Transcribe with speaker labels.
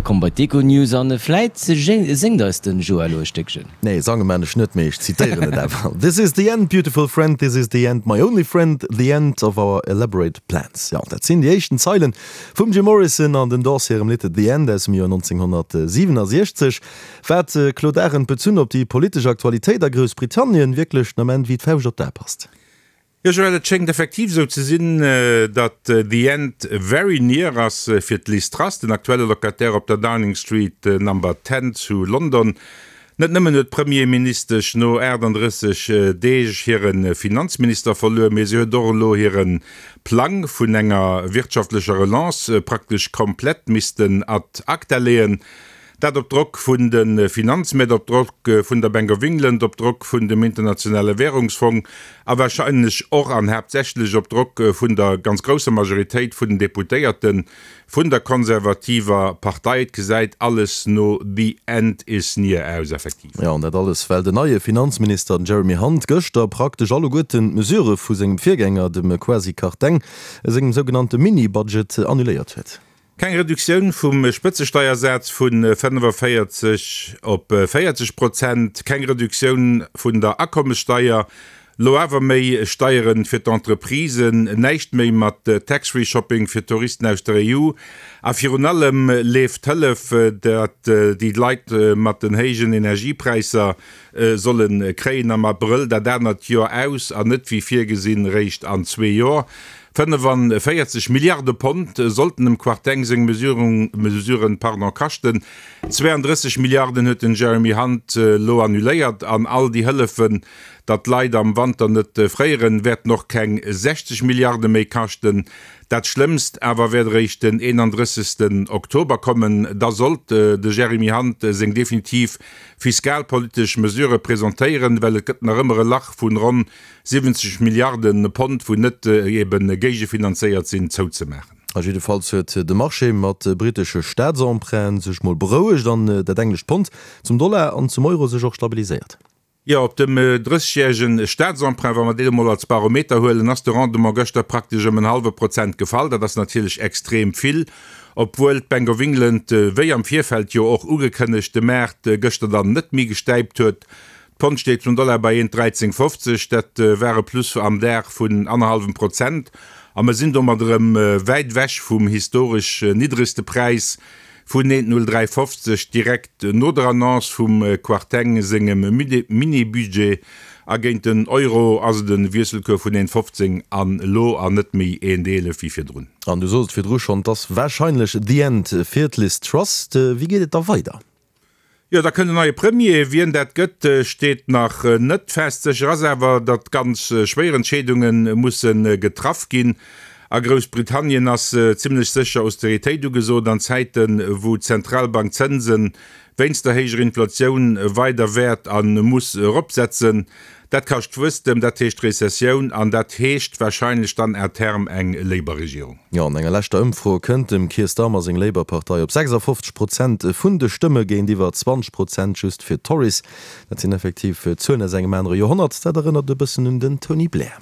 Speaker 1: Komm bei d'Econews an vläit séngt eis den Joa elo e Stéckchen.
Speaker 2: Nee, sange maan ech net, mee ech zitéieren et awer, This is the end, beautiful friend, this is the end, my only friend, the end of our elaborate plans. Jo, dat sinn déi éischten Zeilen vum Jim Morrison an den Doors hirem Lidd The End aus dem Joer 1967. Wat, Claude Arend, bezunn op déi politesch Aktualitéit a Groussbritannien, wierklech den Ament wéi d'Fauscht op d'A passt.
Speaker 3: Jo Joël, et schéngt effektiv esou ze sinn, datt the end very near ass fir d'Liz Truss, den aktuelle Locataire op der Downing Street Number 10 zu London. Net nëmmen huet d'Premierministesch no 38 Deeg hire Finanzminister verluer, mee si huet och elo hire Plang vun enger wirtschaftlecher Relance praktesch komplett missten ad acta leeën. Dat op Drock vun de Finanzmäert, op Drock vun der Bank of England, op Drock vun dem Internationale Währungsfong a wahrscheinlech och an haaptsächlech op Drock vun der ganz grousser Majoritéit vun den Deputéierte vun der konservativer Partei. Et gesäit alles no the end is near aus, effektiv.
Speaker 2: Jo, an dat alles, well den neie Finanzminister, den Jeremy Hunt, gëschter praktesch alleguerten d'Mesurë vu sengem Virgänger, dem Kwasi Kwarteng, sengem sougenannte Mini-Budget annuléiert huet.
Speaker 3: Keng Reduktioun vum Spëtzesteiersaz vu 45 op 40 Prozent, keng Reduktioun vun der Akommessteier, lo awer méi Steieren fir d'Entreprisen, näischt méi mat Tax-Free-Shopping fir Touristen aus der EU a virun allem leeft d'Hëllef, dat déi Leit mat den héijen Energiepräisser solle kréien, am Abrëll dat anert Joer aus an net wéi virgesinn réischt an zwee Joer. 45 Milliarde Pond sollten dem Kwarteng seng Mesuren kaschten. 32 Milliarden huet den Jeremy Hunt elo annuléiert an all déi Hëllefen, datt d'Leit am Wanter net fréieren, wäerten och keng 60 Milliarde méi kaschten. Dat Schlëmmst awer wäert eréischt den 31. Oktober kommen. Da sollt de Jeremy Hunt seng definitiv fiskalpolitesch Mesurë presentéieren, well et gëtt nach ëmmer e Lach vun ronn 70 Milliarde Pond, wou net ebe géigefinanzéiert sinn, zouzemaachen.
Speaker 2: A jiddefalls huet de Marché mat brittesche Staatsemprunten sech mol berouegt an dat englescht Pond zum Dollar an zum Euro sech och stabiliséiert.
Speaker 3: Jo, op dem 30 järege Staatsemprunt, wa mer deen emol als Barometer huelen, ass de Rendement gëschter praktesch ëm en hallwe Prozent gefall. Dat ass natierlech extrem vill, obwuel d'Bank of England, wéi am Virfeld jo och ugekënnegt, de Maart gëschter dann net méi gestäipt huet. D'Pond steet zum Dollar bei 1,1350, dat war e Plus am Dag vun annerhallwem Prozent a mer sinn domat erëm wäit ewech vum historesch niddregste Präis vun 1,0350 direkt no der Annonce vum Kwarteng sengem Mini-Budget. A géint den Euro ass et e Wiesselcours vun 1,15 an elo an net méi 1,11 wéi virdrun.
Speaker 2: An du sos et virdru schonn, et ass warscheinlech the end fir d'Liz Truss. Wéi geet et da weider?
Speaker 3: Jo, da kënnt en neie Premier. Wien dat gëtt, steet nach net fest. Sécher ass awer, datt ganz schwéier Entscheedunge musse getraff ginn. A Groussbritannien ass zimmlech sécher Austeritéit ugesot an Zäiten, wou d'Zentralbank d'Zënse wéinst der héijer Inflatioun weider wäert a muss eropsetzen. Dat kascht Wuesstem, dat heescht Rezessioun an dat heescht warscheinlech dann à terme eng Labour-Regierung.
Speaker 2: Jo, an enger leschter Ëmfro kënnt dem Keir Starmer seng Labour-Partei op 56 Prozent vun de Stëmme géintiwwer 20 Prozent just fir d'Tories. Dat sinn effektiv Zuelen aus engem anere Joerhonnert. Dat erënnert e bëssen un den Tony Blair.